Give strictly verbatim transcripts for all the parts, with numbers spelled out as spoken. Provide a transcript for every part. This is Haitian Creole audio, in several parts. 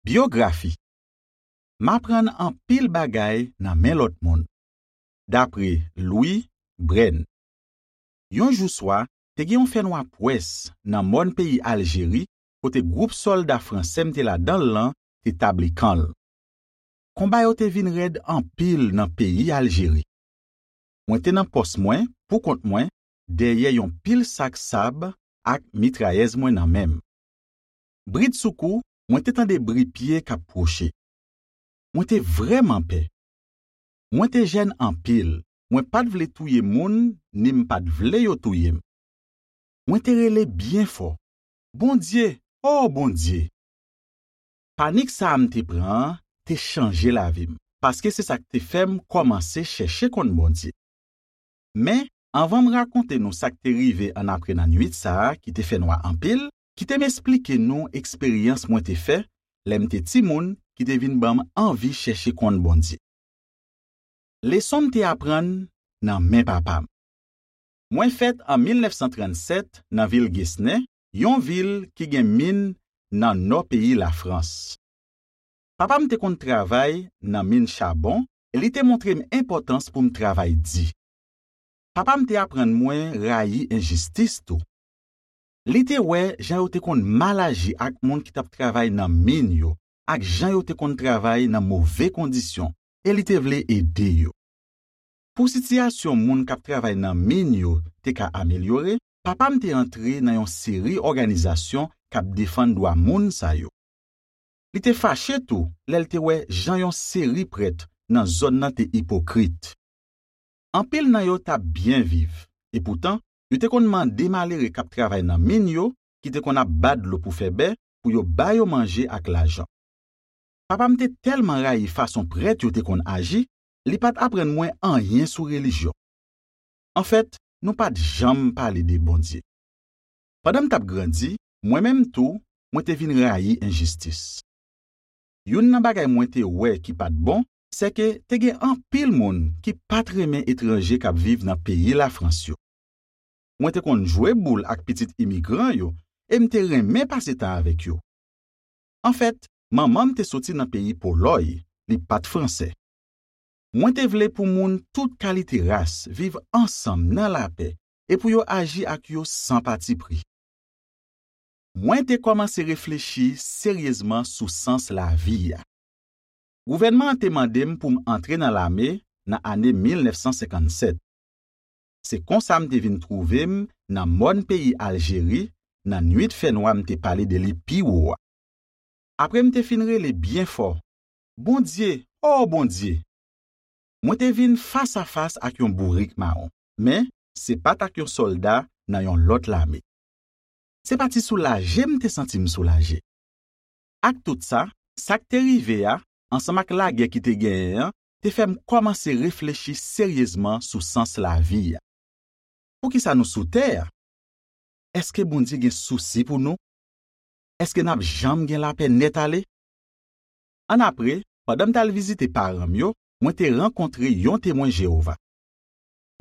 Byografi. M aprann anpil bagay nan men lòt moun. Dapre Louis Brain. Yon jou swa, te gen yon fènwa pwès nan mòn peyi Aljeri, kote gwoup sòlda fransè m te ladan l lan te tabli kan l. Konba yo te vin rèd anpil nan peyi Aljeri. Mwen te nan pòs mwen, pou kont mwen, dèyè yon pil sak sab ak mitrayèz mwen nan men m. Bridsoukou, mwen te tande bri pye k ap pwoche. Mwen te vrèman pè. Mwen te jèn anpil, mwen pa t vle touye moun, ni m pa t vle yo touye m. Mwen te rele byen fò, "Bondye, o Bondye!" Panik sa a m te pran an te chanje lavi m, paske se sa k te fè m kòmanse chèche konn Bondye. Men, anvan m rakonte nou sa k te rive annapre nan nuit sa a ki te fè nwa anpil, kite m esplike nou eksperyans mwen te fè lè m te timoun ki te vin ban m anvi chèche konn Bondye. Leson m te aprann nan men papa m. Mwen fèt an mil nèf san trannsèt nan vil Gesnen, yon vil ki gen min nan nò peyi Lafrans. Papa m te konn travay nan min chabon e li te montre m enpòtans pou m travay di. Papa m te aprann mwen rayi enjistis tou. Li te wè jan yo te konn mal aji ak moun ki t ap travay nan min yo, ak jan yo te konn travay nan move kondisyon, e li te vle ede yo. Pou sitiyasyon moun k ap travay nan min yo te ka amelyore, papa m te antre nan yon seri òganizasyon k ap defann dwa moun sa yo. Li te fache tou lè l te wè jan yon seri prèt nan zòn nan te ipokrit. Anpil nan yo t ap byen viv, epoutan, yo te konn mande malere k ap travay nan min yo, ki te konn ap ba dlo pou fè bè, pou yo ba yo manje ak lajan. Papa m te tèlman rayi fason prèt yo te konn aji, li pa t aprann mwen anyen sou relijyon. Anfèt, nou pa t janm pale de Bondye. Pandan m t ap grandi, mwen menm tou, mwen te vin rayi enjistis. Youn nan bagay mwen te wè ki pa t bon, sèke te gen anpil moun ki pa t renmen etranje k ap viv nan peyi Lafrans yo. Mwen te konn jwe boul ak pitit imigran yo e m te renmen pase tan avèk yo. Anfèt, manman m te soti nan peyi Polòy, li pa t fransè. Mwen te vle pou moun tout kalite ras viv ansanm nan lapè e pou yo aji ak yo san patipri. Mwen te kòmanse reflechi seryezman sou sans lavi a. Gouvènman an te mande m pou m antre nan lame nan ane mil nèf san senkannsèt. Se konsa m te vin twouve m nan mòn peyi Aljeri, nan nuit fènwa m te pale de li pi wo a. Apre m te fin rele byen fò, "Bondye, o Bondye!" Mwen te vin fasafas ak yon bourik mawon, men se pa t ak yon sòlda nan yon lòt lame. Se pa ti soulaje m te santi m soulaje. Ak tout sa, sa k te rive a, ansanm ak lagè ki te genyen an, te fè m kòmanse reflechi seryezman sou sans lavi a. Poukisa nou sou tè a? Èske Bondye gen sousi pou nou? Èske n ap janm gen lapè nèt ale? Annapre, pandan m t al vizite paran m yo, mwen te rankontre yon Temwen Jewova.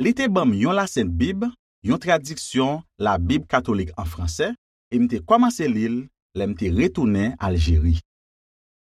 Li te ban m yon lasent Bib, yon tradiksyon Labib katolik an fransè, e m te kòmanse li l lè m te retounen Aljeri.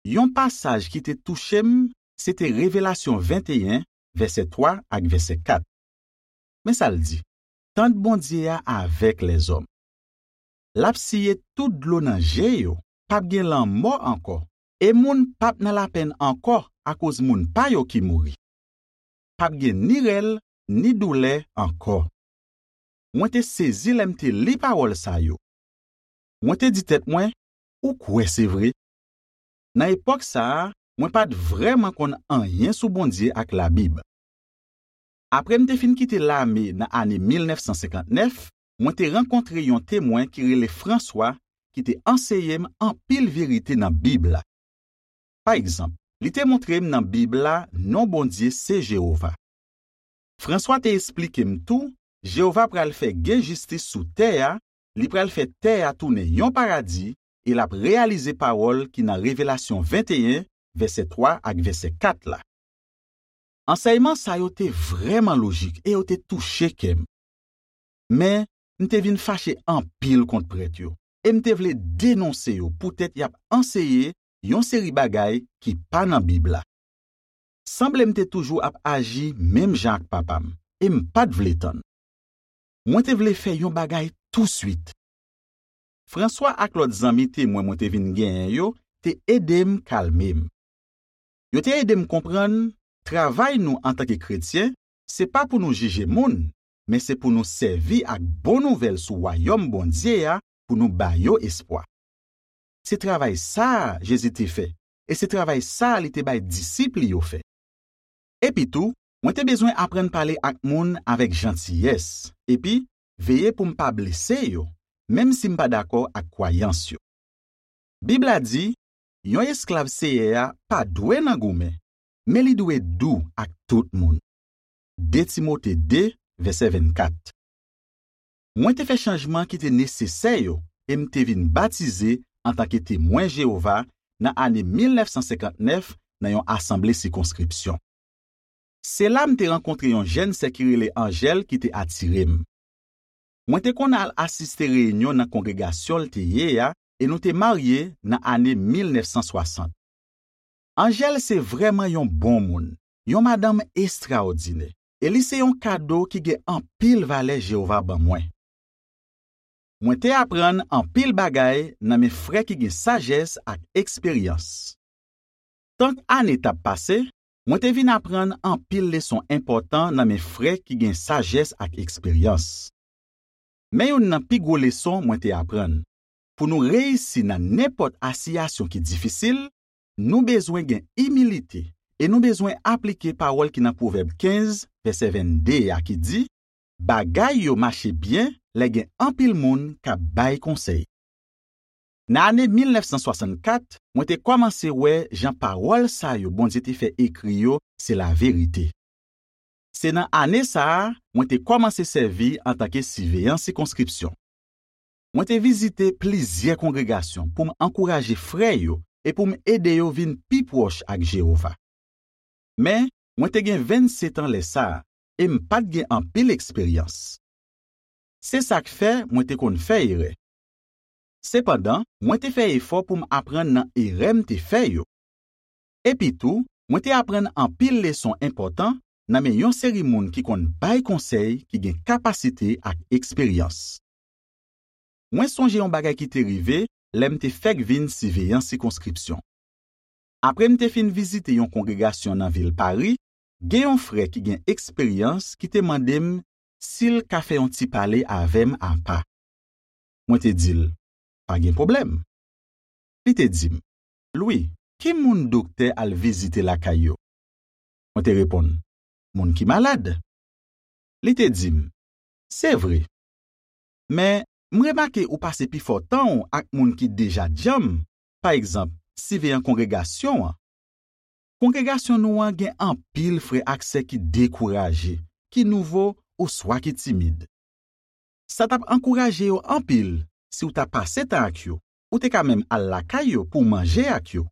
Yon pasaj ki te touche m, se te Revelasyon venteyen, vèsè twa ak vèsè kat. Men sa l di, "Tant Bondye a avèk lèzòm. L ap siye tout dlo nan je yo, p ap gen lanmò ankò, e moun p ap nan lapenn ankò akoz moun pa yo ki mouri. P ap gen ni rèl, ni doulè ankò." Mwen te sezi lè m te li pawòl sa yo. Mwen te di tèt mwen, "Ou kwè se vre?" Nan epòk sa a, mwen pa t vrèman konn anyen sou Bondye ak Labib. Apre m te fin kite lame nan ane mil nèf san senkantnèf, mwen te rankontre yon Temwen ki rele Franswa, ki te anseye m anpil verite nan Bib la. Pa egzanp, li te montre m nan Bib la non Bondye se Jewova. Franswa te esplike m tou, Jewova pral fè gen jistis sou tè a, li pral fè tè a tounen yon paradi, e l ap reyalize pawòl ki nan Revelasyon venteyen, vèsè twa ak vèsè kat la. Ansèyman sa yo te vrèman lojik e yo te touche kè m. Men, m te vin fache anpil kont prèt yo, e m te vle denonse yo poutèt y ap anseye yon seri bagay ki pa nan Bib la. Sanble m te toujou ap aji menm jan ak papa m, e m pa t vle tann. Mwen te vle fè yon bagay touswit. Franswa ak lòt zanmi temwen mwen te vin genyen yo te ede m kalme m. Yo te ede m konprann, travay nou antanke kretyen, se pa pou nou jije moun, men se pou nou sèvi ak bon nouvèl sou Wayòm Bondye a pou nou ba yo espwa. Se travay sa a Jezi te fè, e se travay sa a li te bay disip li yo fè. Epitou, mwen te bezwen aprann pale ak moun avèk jantiyès, epi veye pou m pa blese yo, menm si m pa dakò ak kwayans yo. Bib la di, yon esklav Seyè a pa dwe nan goumen, men li dwe dou ak tout moun. De Timote de, vèsè vennkat. Mwen te fè chanjman ki te nesesè yo e m te vin batize antanke Temwen Jewova nan ane mil nèf san senkant nèf nan yon asanble sikonskripsyon. Se la m te rankontre yon jèn sè ki rele Anjèl ki te atire m. Mwen te konn al asiste reyinyon nan kongregasyon l te ye a e nou te marye nan ane mil nèf san swasant. Anjèl se vrèman yon bon moun, yon madanm estraòdinè, e li se yon kado ki gen anpil valè Jewova ban mwen. Mwen te aprann anpil bagay nan men frè ki gen sajès ak eksperyans. Tank ane t ap pase, mwen te vin aprann anpil leson enpòtan nan men frè ki gen sajès ak eksperyans. Men youn nan pi gwo leson mwen te aprann. Pou nou reyisi nan nenpòt asiyasyon ki difisil, nou bezwen gen imilite e nou bezwen aplike pawòl ki nan Pwovèb kenz, vèsè vennde a ki di, bagay yo mache byen lè gen anpil moun k ap bay konsèy. Nan ane mil nèf san swasannkat, mwen te kòmanse wè jan pawòl sa yo Bondye te fè ekri yo se laverite. Se nan ane sa a, mwen te kòmanse sèvi antanke siveyan sikonskripsyon. Mwen te vizite plizyè kongregasyon pou m ankouraje frè yo e pou m ede yo vin pi pwòch ak Jewova. Men, mwen te gen vennsetan lè sa a, e m pa t gen anpil eksperyans. Se sa k fè mwen te konn fè erè. Sepandan, mwen te fè efò pou m aprann nan erè m te fè yo. Epitou, mwen te aprann anpil leson enpòtan nan men yon seri moun ki konn bay konsèy ki gen kapasite ak eksperyans. Mwen sonje yon bagay ki te rive lè m te fèk vin siveyan sikonskripsyon. Apre m te fin vizite yon kongregasyon nan vil Pari, gen yon frè ki gen eksperyans ki te mande m si l ka fè yon ti pale avè m apa. Mwen te di l, pa gen pwoblèm. Li te di m, Lwi, ki moun doktè al vizite lakay yo? Mwen te reponn, moun ki malad. Li te di m, se vre. Men, m remake ou pase pifò tan w ak moun ki deja djanm, pa egzanp, siveyan kongregasyon an. Kongregasyon nou an gen anpil frè ak sè ki dekouraje, ki nouvo, oswa ki timid. Sa t ap ankouraje yo anpil si w ta pase tan ak yo, ou te ka menm al lakay yo pou w manje ak yo.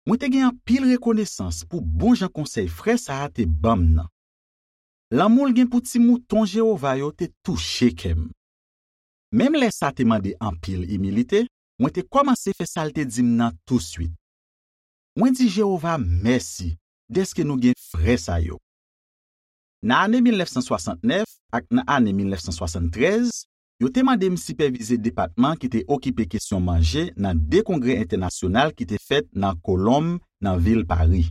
Mwen te gen anpil rekonesans pou bon jan konsèy frè sa a te ban m nan. Lanmou l gen pou ti mouton Jewova yo te touche kè m. Menm lè sa te mande anpil imilite, mwen te kòmanse fè sa l te di m nan touswit. Mwen di Jewova mèsi dèske nou gen frè sa yo. Nan ane mil nèf san swasantnèf ak nan ane mil nèf san swasanntrèz, yo te mande m sipèvize depatman ki te okipe kesyon manje nan de kongrè entènasyonal ki te fèt nan Kolonm, nan vil Pari.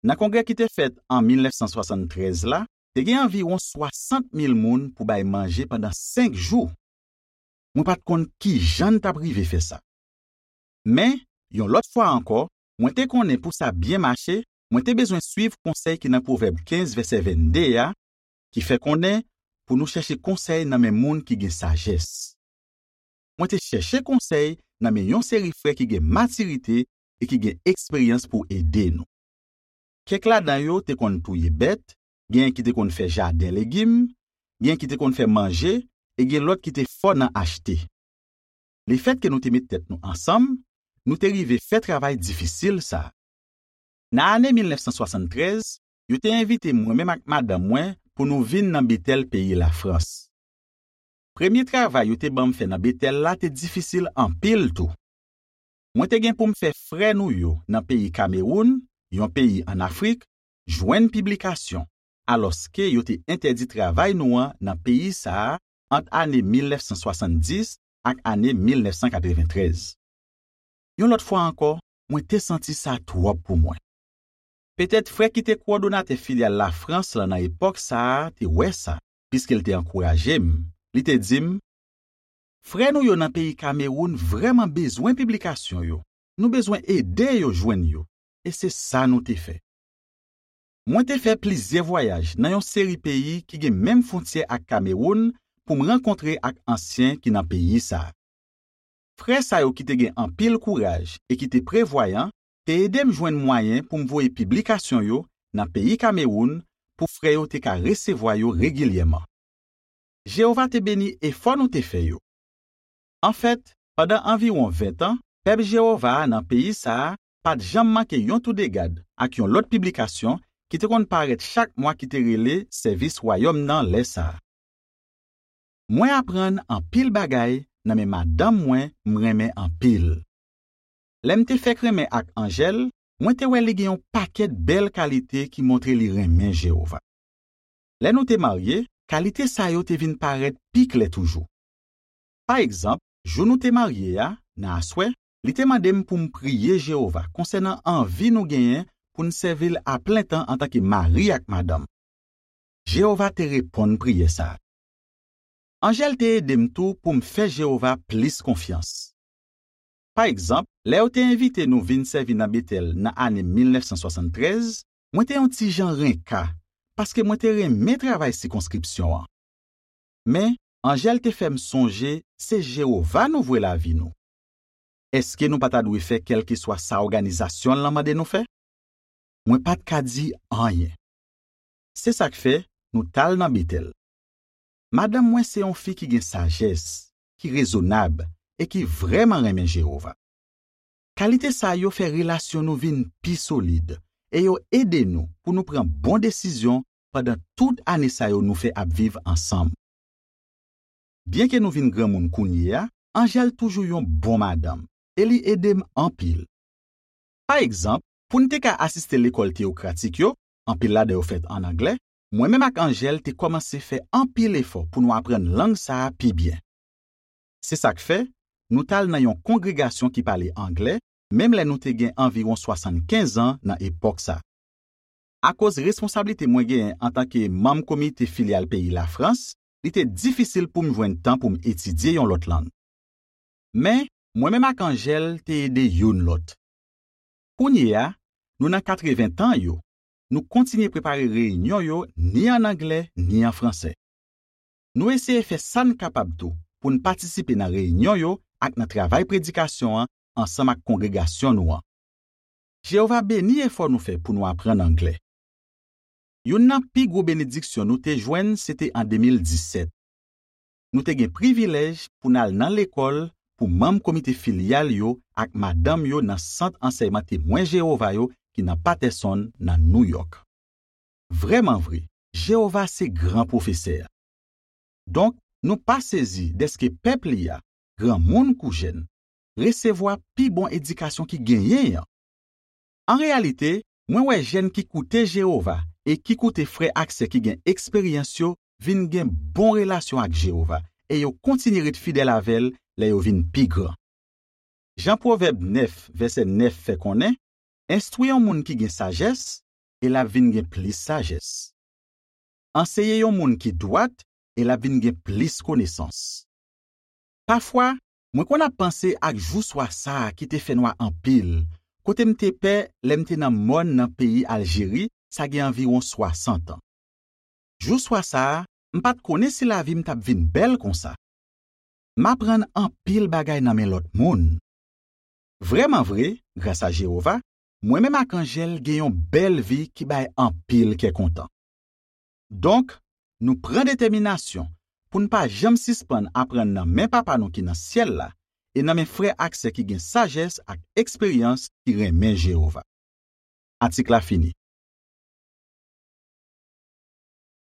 Nan kongrè ki te fèt an mil nèf san swasanntrèz la, te gen anviwon swasant mil moun pou bay manje pandan senk jou. Mwen pa t konn ki jan n t ap rive fè sa. Men, yon lòt fwa ankò, mwen te konnen pou sa byen mache, mwen te bezwen suiv konsèy ki nan Pwovèb kenz, vèsè vennde a, ki fè konnen pou nou chèche konsèy nan men moun ki gen sajès. Mwen te chèche konsèy nan men yon seri frè ki gen matirite e ki gen eksperyans pou ede nou. Kèk ladan yo te konn touye bèt, genyen ki te konn fè jaden legim, genyen ki te konn fè manje, e gen lòt ki te fò nan achte. Lefètke nou te met tèt nou ansanm, nou te rive fè travay difisil sa a. Nan ane mil nèf san swasanntrèz, yo te envite mwen menm ak madanm mwen pou nou vin nan Betèl peyi Lafrans. Premye travay yo te ban m fè nan Betèl la te difisil anpil tou. Mwen te gen pou m fè frè nou yo nan peyi Kamewoun, yon peyi ann Afrik, jwenn piblikasyon, alòske yo te entèdi travay nou an nan peyi sa a ant ane mil nèf san swasanndis ak ane mil nèf san katreventrèz. Yon lòt fwa ankò, mwen te santi sa twòp pou mwen. Petèt frè ki te kowòdonatè filyal Lafrans lan nan epòk sa a te wè sa, piske l te ankouraje m. Li te di m, "Frè nou yo nan peyi Kamewoun vrèman bezwen piblikasyon yo. Nou bezwen ede yo jwenn yo." E se sa nou te fè. Mwen te fè plizyè vwayaj nan yon seri peyi ki gen menm fwontyè ak Kamewoun pou m rankontre ak ansyen ki nan peyi sa a. Frè sa yo ki te gen anpil kouraj e ki te prevwayan te ede m jwenn mwayen pou m voye piblikasyon yo nan peyi Kamewoun pou frè yo te ka resevwa yo regilyèman. Jewova te beni efò nou te fè yo. Anfèt, pandan anviwon ven tan, pèp Jewova a nan peyi sa a pa t janm manke yon toudegad ak yon lòt piblikasyon ki te konn parèt chak mwa ki te rele Sèvis Wayòm nan lè sa a. Mwen aprann anpil bagay nan men madanm mwen m renmen anpil. Lè m te fèk renmen ak Angèle, mwen te wè li gen yon pakèt bèl kalite ki montre li renmen Jewova. Lè nou te marye, kalite sa yo te vin parèt pi klè toujou. Pa egzanp, jou nou te marye a, nan aswè, li te mande m pou m priye Jewova konsènan anvi nou genyen pou n sèvi l aplentan antanke mari ak madanm. Jewova te reponn priyè sa a. Angèle te ede m tou pou m fè Jewova plis konfyans. Pa egzanp, lè yo te envite nou vin sèvi nan Betèl nan ane mil nèf san swasann trèz, mwen te yon ti jan renka paske mwen te renmen travay sikonskripsyon an. Men, Angèle te fè m sonje se Jewova nou vwe lavi nou. Èske nou pa ta dwe fè kèlkeswa sa òganizasyon an mande nou fè? Mwen pa t ka di anyen. Se sa k fè nou t al nan Betèl. Madanm mwen se yon fi ki gen sajès, ki rezonab e ki vrèman renmen Jewova. Kalite sa yo fè relasyon nou vin pi solid e yo ede nou pou nou pran bon desizyon pandan tout ane sa yo nou fè ap viv ansanm. Byenke nou vin granmoun kounye a, Angèle toujou yon bon madanm e li ede m anpil. Pa egzanp, pou n te ka asiste lekòl teyokratik yo, anpil ladan yo fèt ann anglè, mwen menm ak Angèle te kòmanse fè anpil efò pou nou aprann lang sa a pi byen. Se sa k fè, nou t al nan yon kongregasyon ki pale anglè, menm lè nou te gen anviwon swasannkenz an nan epòk sa. Akoz responsablite mwen genyen antanke manm komite filyal peyi Lafrans, li te difisil pou m jwenn tan pou m etidye yon lòt lang. Men, mwen menm ak Angèle te ede youn lòt. Kounye a, nou nan katreven tan yo, nou kontinye prepare reyinyon yo ni ann anglè ni an fransè. Nou eseye fè sa n kapab tou pou n patisipe nan reyinyon yo ak nan travay predikasyon an ansanm ak kongregasyon nou an. Jewova beni efò nou fè pou nou aprann anglè. Youn nan pi gwo benediksyon nou te jwenn se te an de mil disèt. Nou te gen privilèj pou n al nan lekòl pou manm komite filyal yo ak madanm yo nan Sant Ansèyman Temwen Jewova yo ki nan Patterson, nan Nouyòk. Vrèman vre, Jewova se gran pwofesè a. Donk, nou pa sezi dèske pèp li a, granmoun kou jèn, resevwa pi bon edikasyon ki genyen an. An reyalite, mwen wè jèn ki koute Jewova e ki koute frè ak sè ki gen eksperyans yo vin gen bon relasyon ak Jewova e yo kontinye ret fidèl avè l lè yo vin pi gran. Jan Pwovèb nèf, vèsè nèf fè konnen, enstwi yon moun ki gen sajès, e l ap vin gen plis sajès. Anseye yon moun ki dwat, e l ap vin gen plis konesans. Pafwa, mwen konn ap panse ak jou swa sa a ki te fè nwa anpil, kote m te pè lè m te nan mòn nan peyi Aljeri, sa gen anviwon swasant an. Jou swa sa a, m pa t konnen si lavi m t ap vin bèl konsa. M aprann anpil bagay nan men lòt moun. Vrèman vre, gras a Jewova, mwen menm ak Angèle gen yon bèl vi ki bay anpil kè kontan. Donk, nou pran detèminasyon pou n pa janm sispann aprann nan men Papa nou ki nan syèl la e nan men frè ak sè ki gen sajès ak eksperyans ki renmen Jewova. Atik la fini.